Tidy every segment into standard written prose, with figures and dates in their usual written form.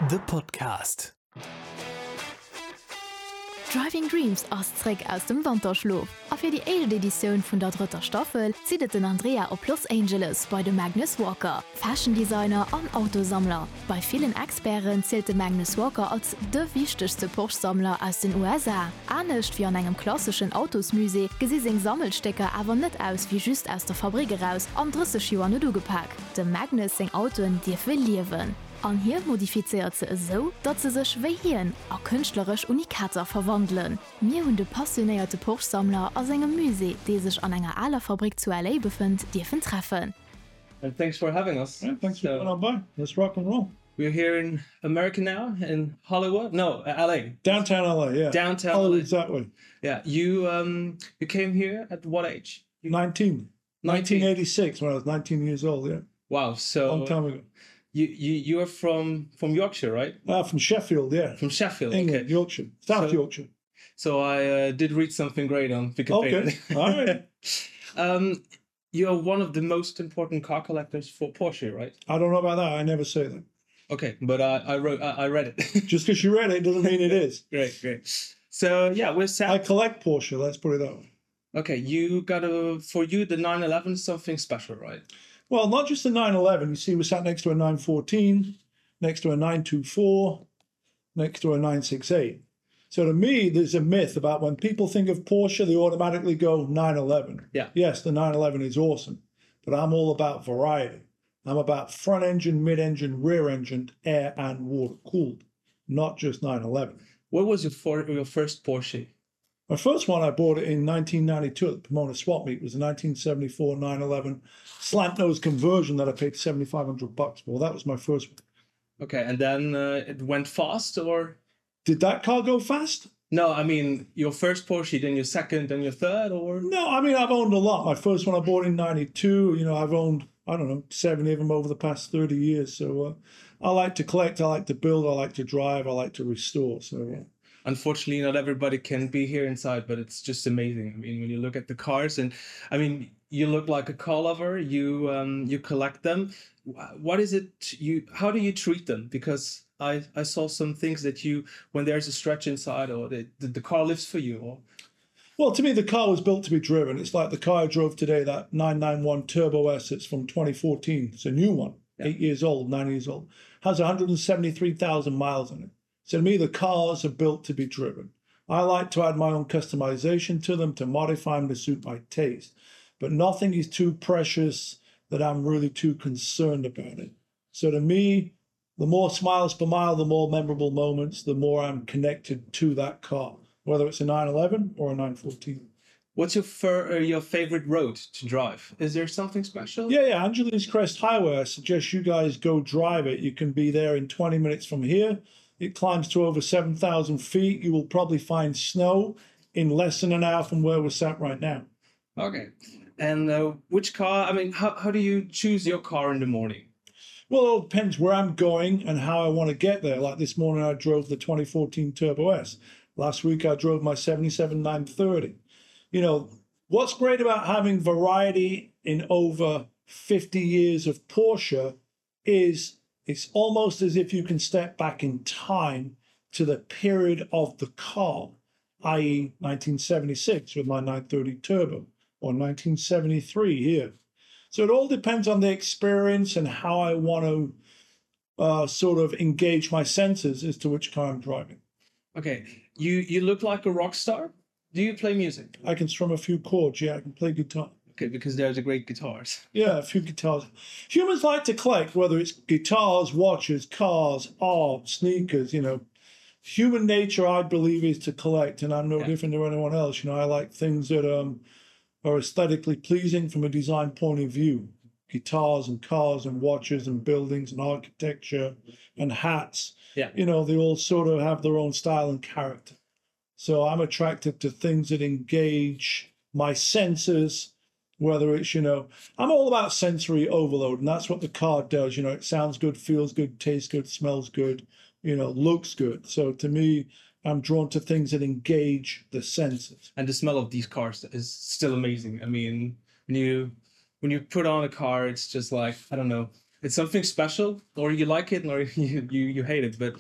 The Podcast. Driving Dreams ass zréck aus dem Wanterschlof a fir déi éischt Editioun vun der drëtter Staffel zitt et den Andrea op Los Angeles bei de Magnus Walker, Fashion Designer an Autosammler. Bei villen Experten zielt de Magnus Walker als de wichtegste Porsche-Sammler aus den USA. Anescht wéi an engem klasseschen Autosmusée gesi seng Sammelstécker awer net aus wéi just aus der Fabrick eraus an 30 Joer net ugepak. Dem Magnus seng Autoen dierfe liewen. An hie modifizéiert se esou, datt se sech wéi hien a kënschtleresch Unikater verwandelen. Mir hunn de passionéierte Porsche-Sammler a sengem Musée, dee sech an enger aler Fabrick zu LA befënnt, dierfen treffen. And thanks for having us. Yeah, thanks for coming on by. Let's rock and roll. We're here in America now in Hollywood. No, LA. Downtown LA, yeah. Downtown Hollywood's that way. Yeah. You um you came here at what age? 19. 1986 when I was 19 years old, yeah. Wow, so long time ago. You you you are from from Yorkshire, right? Uh, from Sheffield, yeah. From Sheffield, England, okay. Yorkshire, South so, Yorkshire. So I uh, did read something great on Wikipedia. Okay, all right. um, you're one of the most important car collectors for Porsche, right? I don't know about that. I never say that. Okay, but I, I wrote I, I read it. Just because you read it doesn't mean it is. Great, great. So yeah, we're sad. I collect Porsche, let's put it that way. Okay, you got a for you the 911 is something special, right? Well, not just the 911. You see, we sat next to a 914, next to a 924, next to a 968. So to me, there's a myth about when people think of Porsche, they automatically go 911. Yeah. Yes, the 911 is awesome, but I'm all about variety. I'm about front engine, mid engine, rear engine, air and water cooled, not just 911. What was your, for, your first Porsche? My first one I bought it in 1992 at the Pomona Swap Meet. It was a 1974 911 slant nose conversion that I paid 7,500 bucks for. That was my first one. Okay, and then uh, it went fast or? Did that car go fast? No, I mean your first Porsche, then your second, then your third, or no? I mean I've owned a lot. My first one I bought in '92. You know I've owned I don't know 70 of them over the past 30 years. So uh, I like to collect, I like to build, I like to drive, I like to restore. So yeah. Unfortunately, not everybody can be here inside, but it's just amazing. I mean, when you look at the cars, and I mean, you look like a car lover. You um, you collect them. What is it you? How do you treat them? Because I I saw some things that you when there's a stretch inside, or the the, the car lives for you. Or well, to me, the car was built to be driven. It's like the car I drove today, that 991 Turbo S. It's from 2014. It's a new one, yeah. eight years old, nine years old. Has 173,000 miles on it. So to me, the cars are built to be driven. I like to add my own customization to them to modify them to suit my taste. But nothing is too precious that I'm really too concerned about it. So to me, the more smiles per mile, the more memorable moments, the more I'm connected to that car, whether it's a 911 or a 914. What's your fir- uh, your favorite road to drive? Is there something special? Yeah, yeah, Angeles Crest Highway. I suggest you guys go drive it. You can be there in 20 minutes from here. It climbs to over 7,000 feet. You will probably find snow in less than an hour from where we're sat right now. Okay. And uh, which car? I mean, how, how do you choose your car in the morning? Well, it depends where I'm going and how I want to get there. Like this morning, I drove the 2014 Turbo S. Last week, I drove my 77 930. You know, what's great about having variety in over 50 years of Porsche is it's almost as if you can step back in time to the period of the car, i.e., 1976 with my 930 Turbo or 1973 here. So it all depends on the experience and how I want to uh, sort of engage my senses as to which car I'm driving. Okay, you you look like a rock star. Do you play music? I can strum a few chords. Yeah, I can play guitar. Okay, because there's a great guitars. Yeah, a few guitars. Humans like to collect, whether it's guitars, watches, cars, art, sneakers, you know. Human nature, I believe, is to collect, and I'm no yeah. different to anyone else. You know, I like things that um, are aesthetically pleasing from a design point of view. Guitars and cars and watches and buildings and architecture and hats. Yeah. You know, they all sort of have their own style and character. So I'm attracted to things that engage my senses whether it's you know i'm all about sensory overload and that's what the car does you know it sounds good feels good tastes good smells good you know looks good so to me i'm drawn to things that engage the senses and the smell of these cars is still amazing i mean when you when you put on a car it's just like i don't know. It's something special, or you like it, or you you, you hate it. But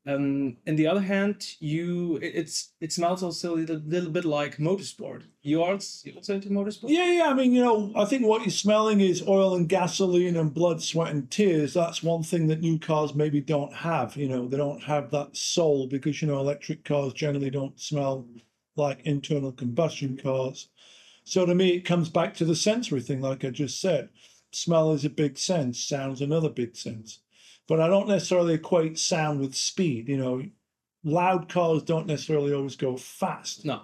um, in the other hand, you it, it's it smells also a little, little bit like motorsport. You are also into motorsport? Yeah, yeah. I mean, you know, I think what you're smelling is oil and gasoline and blood, sweat and tears. That's one thing that new cars maybe don't have. You know, they don't have that soul because, you know, electric cars generally don't smell like internal combustion cars. So to me, it comes back to the sensory thing, like I just said. Smell is a big sense, sound's another big sense. But I don't necessarily equate sound with speed. You know, loud cars don't necessarily always go fast. No.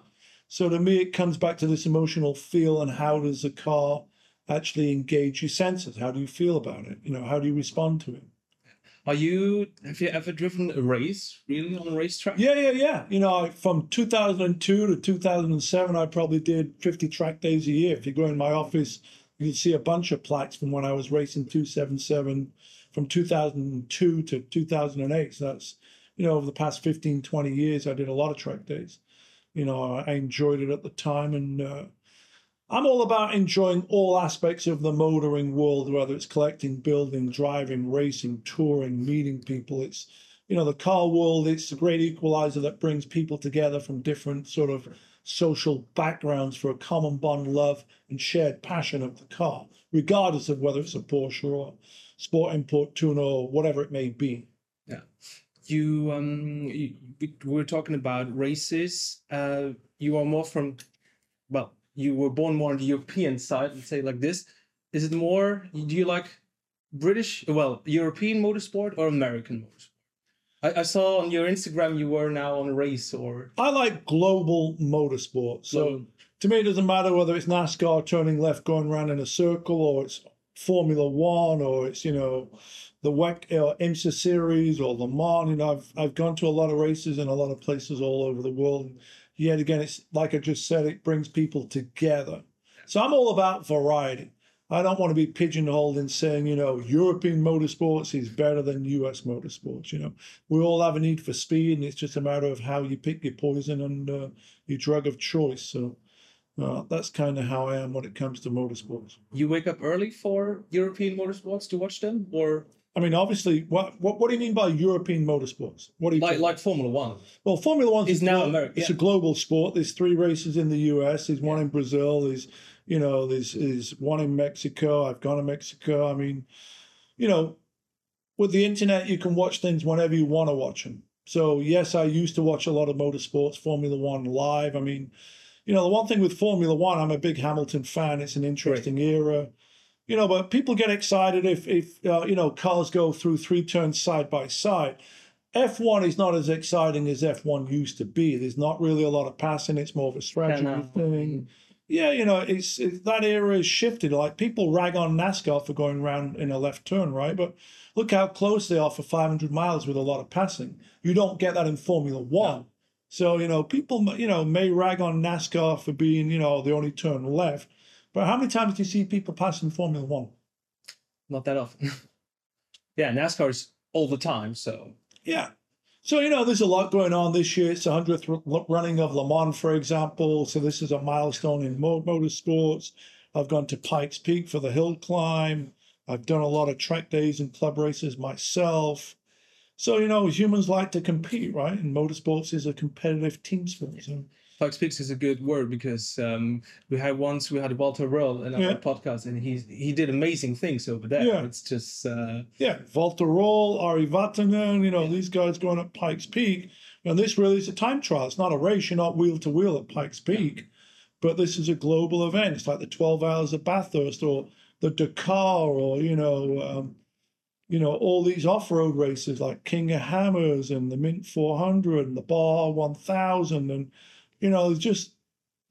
So to me, it comes back to this emotional feel and how does the car actually engage your senses? How do you feel about it? You know, how do you respond to it? Are you have you ever driven a race really on a racetrack? Yeah, yeah, yeah. You know, from 2002 to 2007, I probably did 50 track days a year. If you go in my office, you can see a bunch of plaques from when I was racing 277 from 2002 to 2008. So that's, you know, over the past 15, 20 years, I did a lot of track days. You know, I enjoyed it at the time and uh, I'm all about enjoying all aspects of the motoring world, whether it's collecting, building, driving, racing, touring, meeting people. It's, you know, the car world, it's a great equalizer that brings people together from different sort of social backgrounds for a common bond, love, and shared passion of the car, regardless of whether it's a Porsche or Sport Import Tuner or whatever it may be. Yeah. You, um, you, we were talking about races. Uh, you are more from, well, you were born more on the European side, let's say like this. Is it more, do you like British, well, European motorsport or American motorsport? I, I saw on your Instagram you were now on a race or... I like global motorsport. So global. to me, it doesn't matter whether it's NASCAR turning left, going round in a circle, or it's Formula One, or it's, you know, the WEC or IMSA series or Le Mans. You know, I've, I've gone to a lot of races in a lot of places all over the world. Yet again, it's like I just said, it brings people together. So I'm all about variety. I don't want to be pigeonholed in saying, you know, European motorsports is better than US motorsports. You know, we all have a need for speed, and it's just a matter of how you pick your poison and uh, your drug of choice. So uh, that's kind of how I am when it comes to motorsports. You wake up early for European motorsports to watch them, or? I mean, obviously, what what, what do you mean by European motorsports? What do you like like Formula One? Well, Formula One is now American. It's yeah. a global sport. There's three races in the US. There's one in Brazil. There's you know, there's, there's one in Mexico. I've gone to Mexico. I mean, you know, with the internet, you can watch things whenever you want to watch them. So yes, I used to watch a lot of motorsports, Formula One live. I mean, you know, the one thing with Formula One, I'm a big Hamilton fan. It's an interesting right. era you know, but people get excited if, if uh, you know, cars go through three turns side by side. F1 is not as exciting as F1 used to be. There's not really a lot of passing. It's more of a strategy thing. Yeah, you know, it's, it's that era has shifted. Like people rag on NASCAR for going round in a left turn, right? But look how close they are for 500 miles with a lot of passing. You don't get that in Formula One. No. So, you know, people, you know, may rag on NASCAR for being, you know, the only turn left. But how many times do you see people passing Formula One? Not that often. yeah, NASCAR is all the time, so. Yeah. So, you know, there's a lot going on this year. It's the 100th running of Le Mans, for example. So this is a milestone in motorsports. I've gone to Pikes Peak for the hill climb. I've done a lot of track days and club races myself. So, you know, humans like to compete, right? And motorsports is a competitive team sport. So. Pikes Peak is a good word because um, we had once we had Walter Röhrl in our yeah. podcast and he he did amazing things over there. Yeah. It's just uh... yeah, Walter Röhrl, Ari Vatanen, you know, yeah. these guys going up Pikes Peak. And this really is a time trial. It's not a race. You're not wheel to wheel at Pikes Peak, yeah. but this is a global event. It's like the 12 hours of Bathurst or the Dakar or, you know, um, you know, all these off-road races like King of Hammers and the Mint 400 and the Bar 1000 and, you know, there's just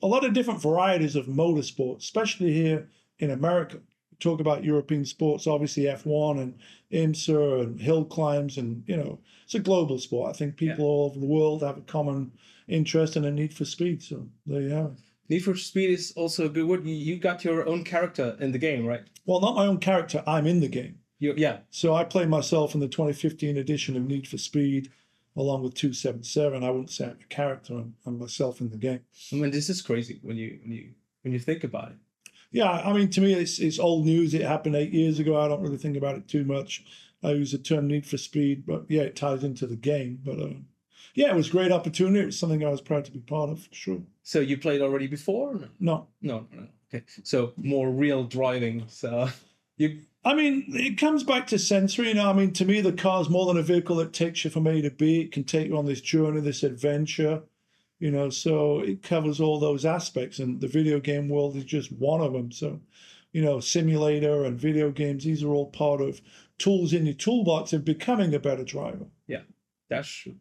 a lot of different varieties of motorsports, especially here in America. We talk about European sports, obviously F1 and IMSA and hill climbs and, you know, it's a global sport. I think people yeah. all over the world have a common interest and a need for speed. So there you have it. Need for Speed is also a good word. You got your own character in the game, right? Well, not my own character. I'm in the game. You, yeah. So I play myself in the 2015 edition of Need for Speed, along with 277. I wouldn't say I'm a character. I'm, I'm myself in the game. I mean, this is crazy when you when you when you think about it. yeah, I mean, to me, it's it's old news. It happened eight years ago. I don't really think about it too much. I use the term need for speed, but yeah, it ties into the game. But uh, yeah, it was a great opportunity. It was something I was proud to be part of, for sure. So you played already before? No, no, no. no. Okay, so more real driving. So you. I mean, it comes back to sensory. You know, I mean, to me, the car is more than a vehicle that takes you from A to B. It can take you on this journey, this adventure. You know, so it covers all those aspects, and the video game world is just one of them. So, you know, simulator and video games, these are all part of tools in your toolbox of becoming a better driver. Yeah, that's true.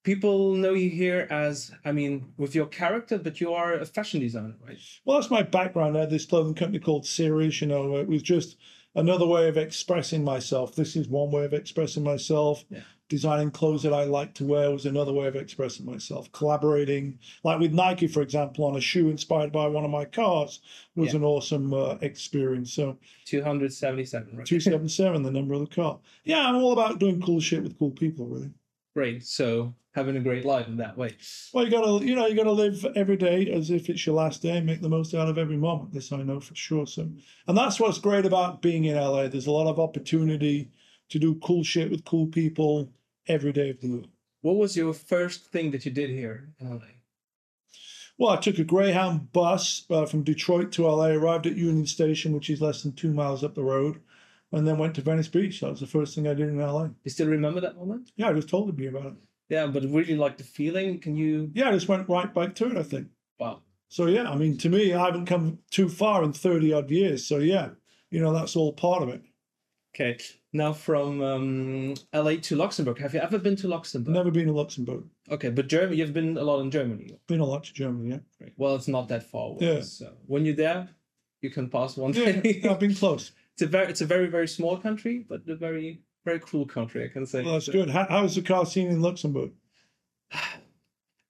People know you here as, I mean, with your character, but you are a fashion designer, right? Well, that's my background. I had this clothing company called Sirius, you know, it was just another way of expressing myself. This is one way of expressing myself. Yeah. Designing clothes that I like to wear was another way of expressing myself. Collaborating, like with Nike, for example, on a shoe inspired by one of my cars was yeah. an awesome uh, experience. So 277, right? 277, the number of the car. Yeah, I'm all about doing cool shit with cool people, really. Great. So having a great life in that way. Well, you gotta, you know, you gotta live every day as if it's your last day and make the most out of every moment. This I know for sure. So, and that's what's great about being in LA. There's a lot of opportunity to do cool shit with cool people every day of the year. What was your first thing that you did here in LA? Well, I took a Greyhound bus uh, from Detroit to LA, arrived at Union Station, which is less than two miles up the road, and then went to Venice Beach. That was the first thing I did in LA. You still remember that moment? Yeah, I just told you about it. Yeah, but really like the feeling. Can you? Yeah, I just went right back to it, I think. Wow. So yeah, I mean, to me, I haven't come too far in 30 odd years. So yeah, you know, that's all part of it. Okay. Now from um, LA to Luxembourg. Have you ever been to Luxembourg? Never been to Luxembourg. Okay, but Germany, you've been a lot in Germany. Been a lot to Germany, yeah. Right. Well, it's not that far away. Yeah. So when you're there, you can pass one yeah, day. I've been close. It's a very, it's a very, very small country, but a very, very cool country, I can say. Well, that's good. How, how's the car scene in Luxembourg?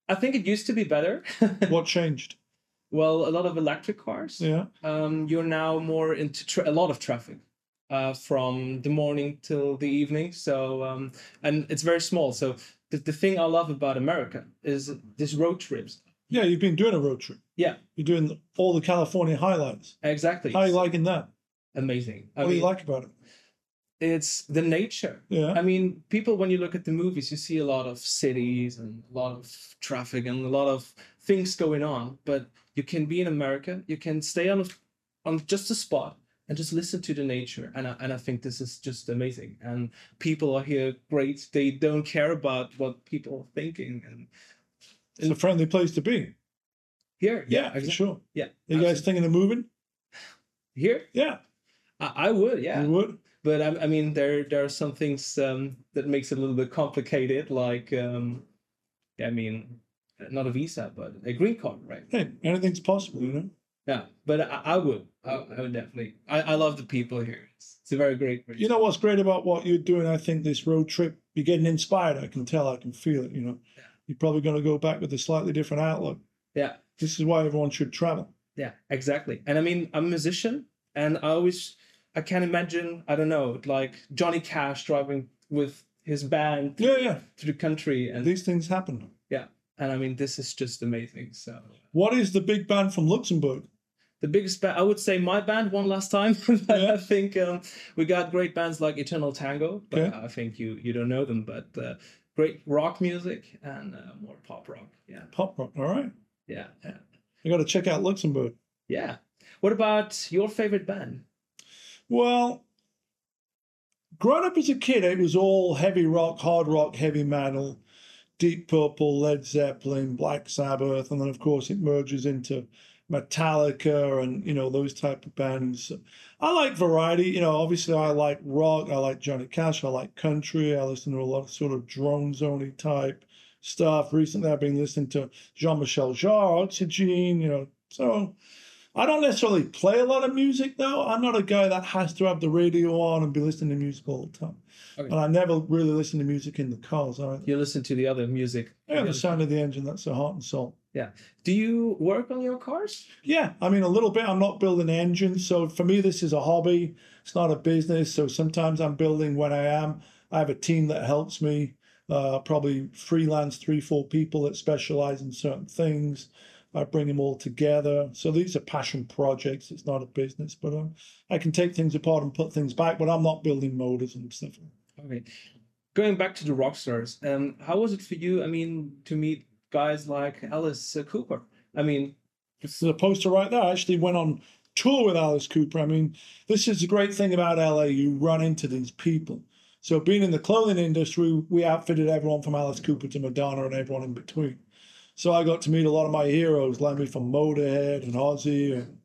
I think it used to be better. what changed? Well, a lot of electric cars. Yeah. Um, you're now more into a lot of traffic uh, from the morning till the evening. So um, and it's very small. So the, the thing I love about America is this road trips. Yeah, you've been doing a road trip. Yeah. You're doing all the California highlights. Exactly. How are you liking that? Amazing. I what mean, do you like about it? It's the nature. Yeah. I mean, people, when you look at the movies, you see a lot of cities and a lot of traffic and a lot of things going on. But you can be in America, you can stay on, on just a spot and just listen to the nature. And I, and I think this is just amazing. And people are here great. They don't care about what people are thinking. And it's a friendly place to be. Here, yeah, yeah exactly. sure. Yeah. Are you guys thinking of moving? Here? Yeah. I, I would, yeah. You would? But I, I mean, there there are some things um, that makes it a little bit complicated, like um, I mean, not a visa, but a green card, right? Hey, anything's possible, you know. Yeah, but I, I would, I, I would definitely. I, I love the people here. It's, it's a very great. You know what's great about what you're doing? I think this road trip, you're getting inspired. I can tell. I can feel it. You know, yeah. you're probably going to go back with a slightly different outlook. Yeah. This is why everyone should travel. Yeah, exactly. And I mean, I'm a musician, and I always, I can't imagine. I don't know, like Johnny Cash driving with his band. Yeah, yeah. Through the country, and these things happen. Yeah, and I mean, this is just amazing. So, what is the big band from Luxembourg? The biggest band, I would say, my band one last time. yeah. I think um, we got great bands like Eternal Tango, but okay. I think you you don't know them. But uh, great rock music and uh, more pop rock. Yeah, pop rock. All right. Yeah, yeah. You got to check out Luxembourg. Yeah. What about your favorite band? Well, growing up as a kid, it was all heavy rock, hard rock, heavy metal. Deep Purple, Led Zeppelin, Black Sabbath, and then of course it merges into Metallica and you know those type of bands. I like variety, you know. Obviously, I like rock. I like Johnny Cash. I like country. I listen to a lot of sort of drone zony type stuff. Recently, I've been listening to Jean Michel Jarre, Oxygen. You know, so I don't necessarily play a lot of music though. I'm not a guy that has to have the radio on and be listening to music all the time. Okay. And I never really listen to music in the cars either. You listen to the other music. Yeah, the sound of the engine, that's the heart and soul. Yeah. Do you work on your cars? Yeah, I mean, a little bit. I'm not building engines. So for me, this is a hobby. It's not a business. So sometimes I'm building when I am. I have a team that helps me, uh, probably freelance three, four people that specialize in certain things. I bring them all together. So these are passion projects. It's not a business, but um, I can take things apart and put things back, but I'm not building motors and stuff. Okay. Going back to the rock stars, um, how was it for you, I mean, to meet guys like Alice Cooper? I mean, it's the poster right there. I actually went on tour with Alice Cooper. I mean, this is the great thing about LA. You run into these people. So being in the clothing industry, we outfitted everyone from Alice Cooper to Madonna and everyone in between. So I got to meet a lot of my heroes, Lemmy from Motorhead and Ozzy and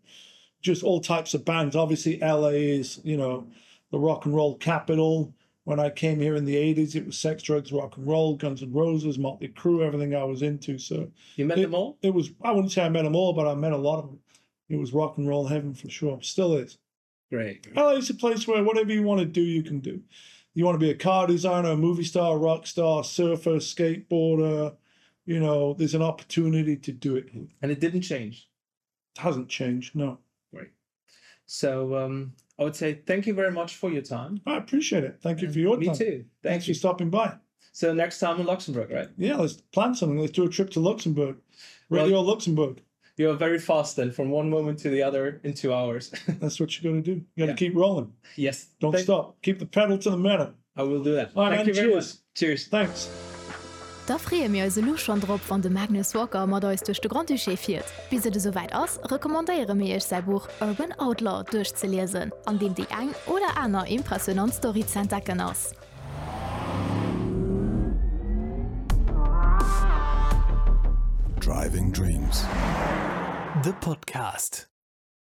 just all types of bands. Obviously, LA is, you know, the rock and roll capital. When I came here in the 80s, it was sex, drugs, rock and roll, Guns N' Roses, Motley Crue, everything I was into. So you met it, them all? It was, I wouldn't say I met them all, but I met a lot of them. It was rock and roll heaven for sure. Still is. Great. LA is a place where whatever you want to do, you can do. You want to be a car designer, a movie star, rock star, surfer, skateboarder, you know, there's an opportunity to do it here. And it didn't change. It hasn't changed, no. Right. So um, I would say thank you very much for your time. I appreciate it. Thank you for your Me time. too. Thank Thanks you. for stopping by. So next time in Luxembourg, right? Yeah, let's plan something. Let's do a trip to Luxembourg. Radio Well, Luxembourg. You're very fast then, from one moment to the other in two hours. That's what you got to do. You got to Yeah. keep rolling. yes. Don't Thank- stop. Keep the pedal to the metal. I will do that. All right, Thank man, you very cheers. much. Cheers. Thanks. Da freeë mir eis elo schonn drop, wann de Magnus Walker mat eis duerch de Grand-Duché fiert. Bis et esouwäit ass, recommandéiere mir iech säi Buch Urban Outlaw duerchzeliesen, an deem déi eng oder aner impressionant Story z'entdecken ass. Driving Dreams, de Podcast.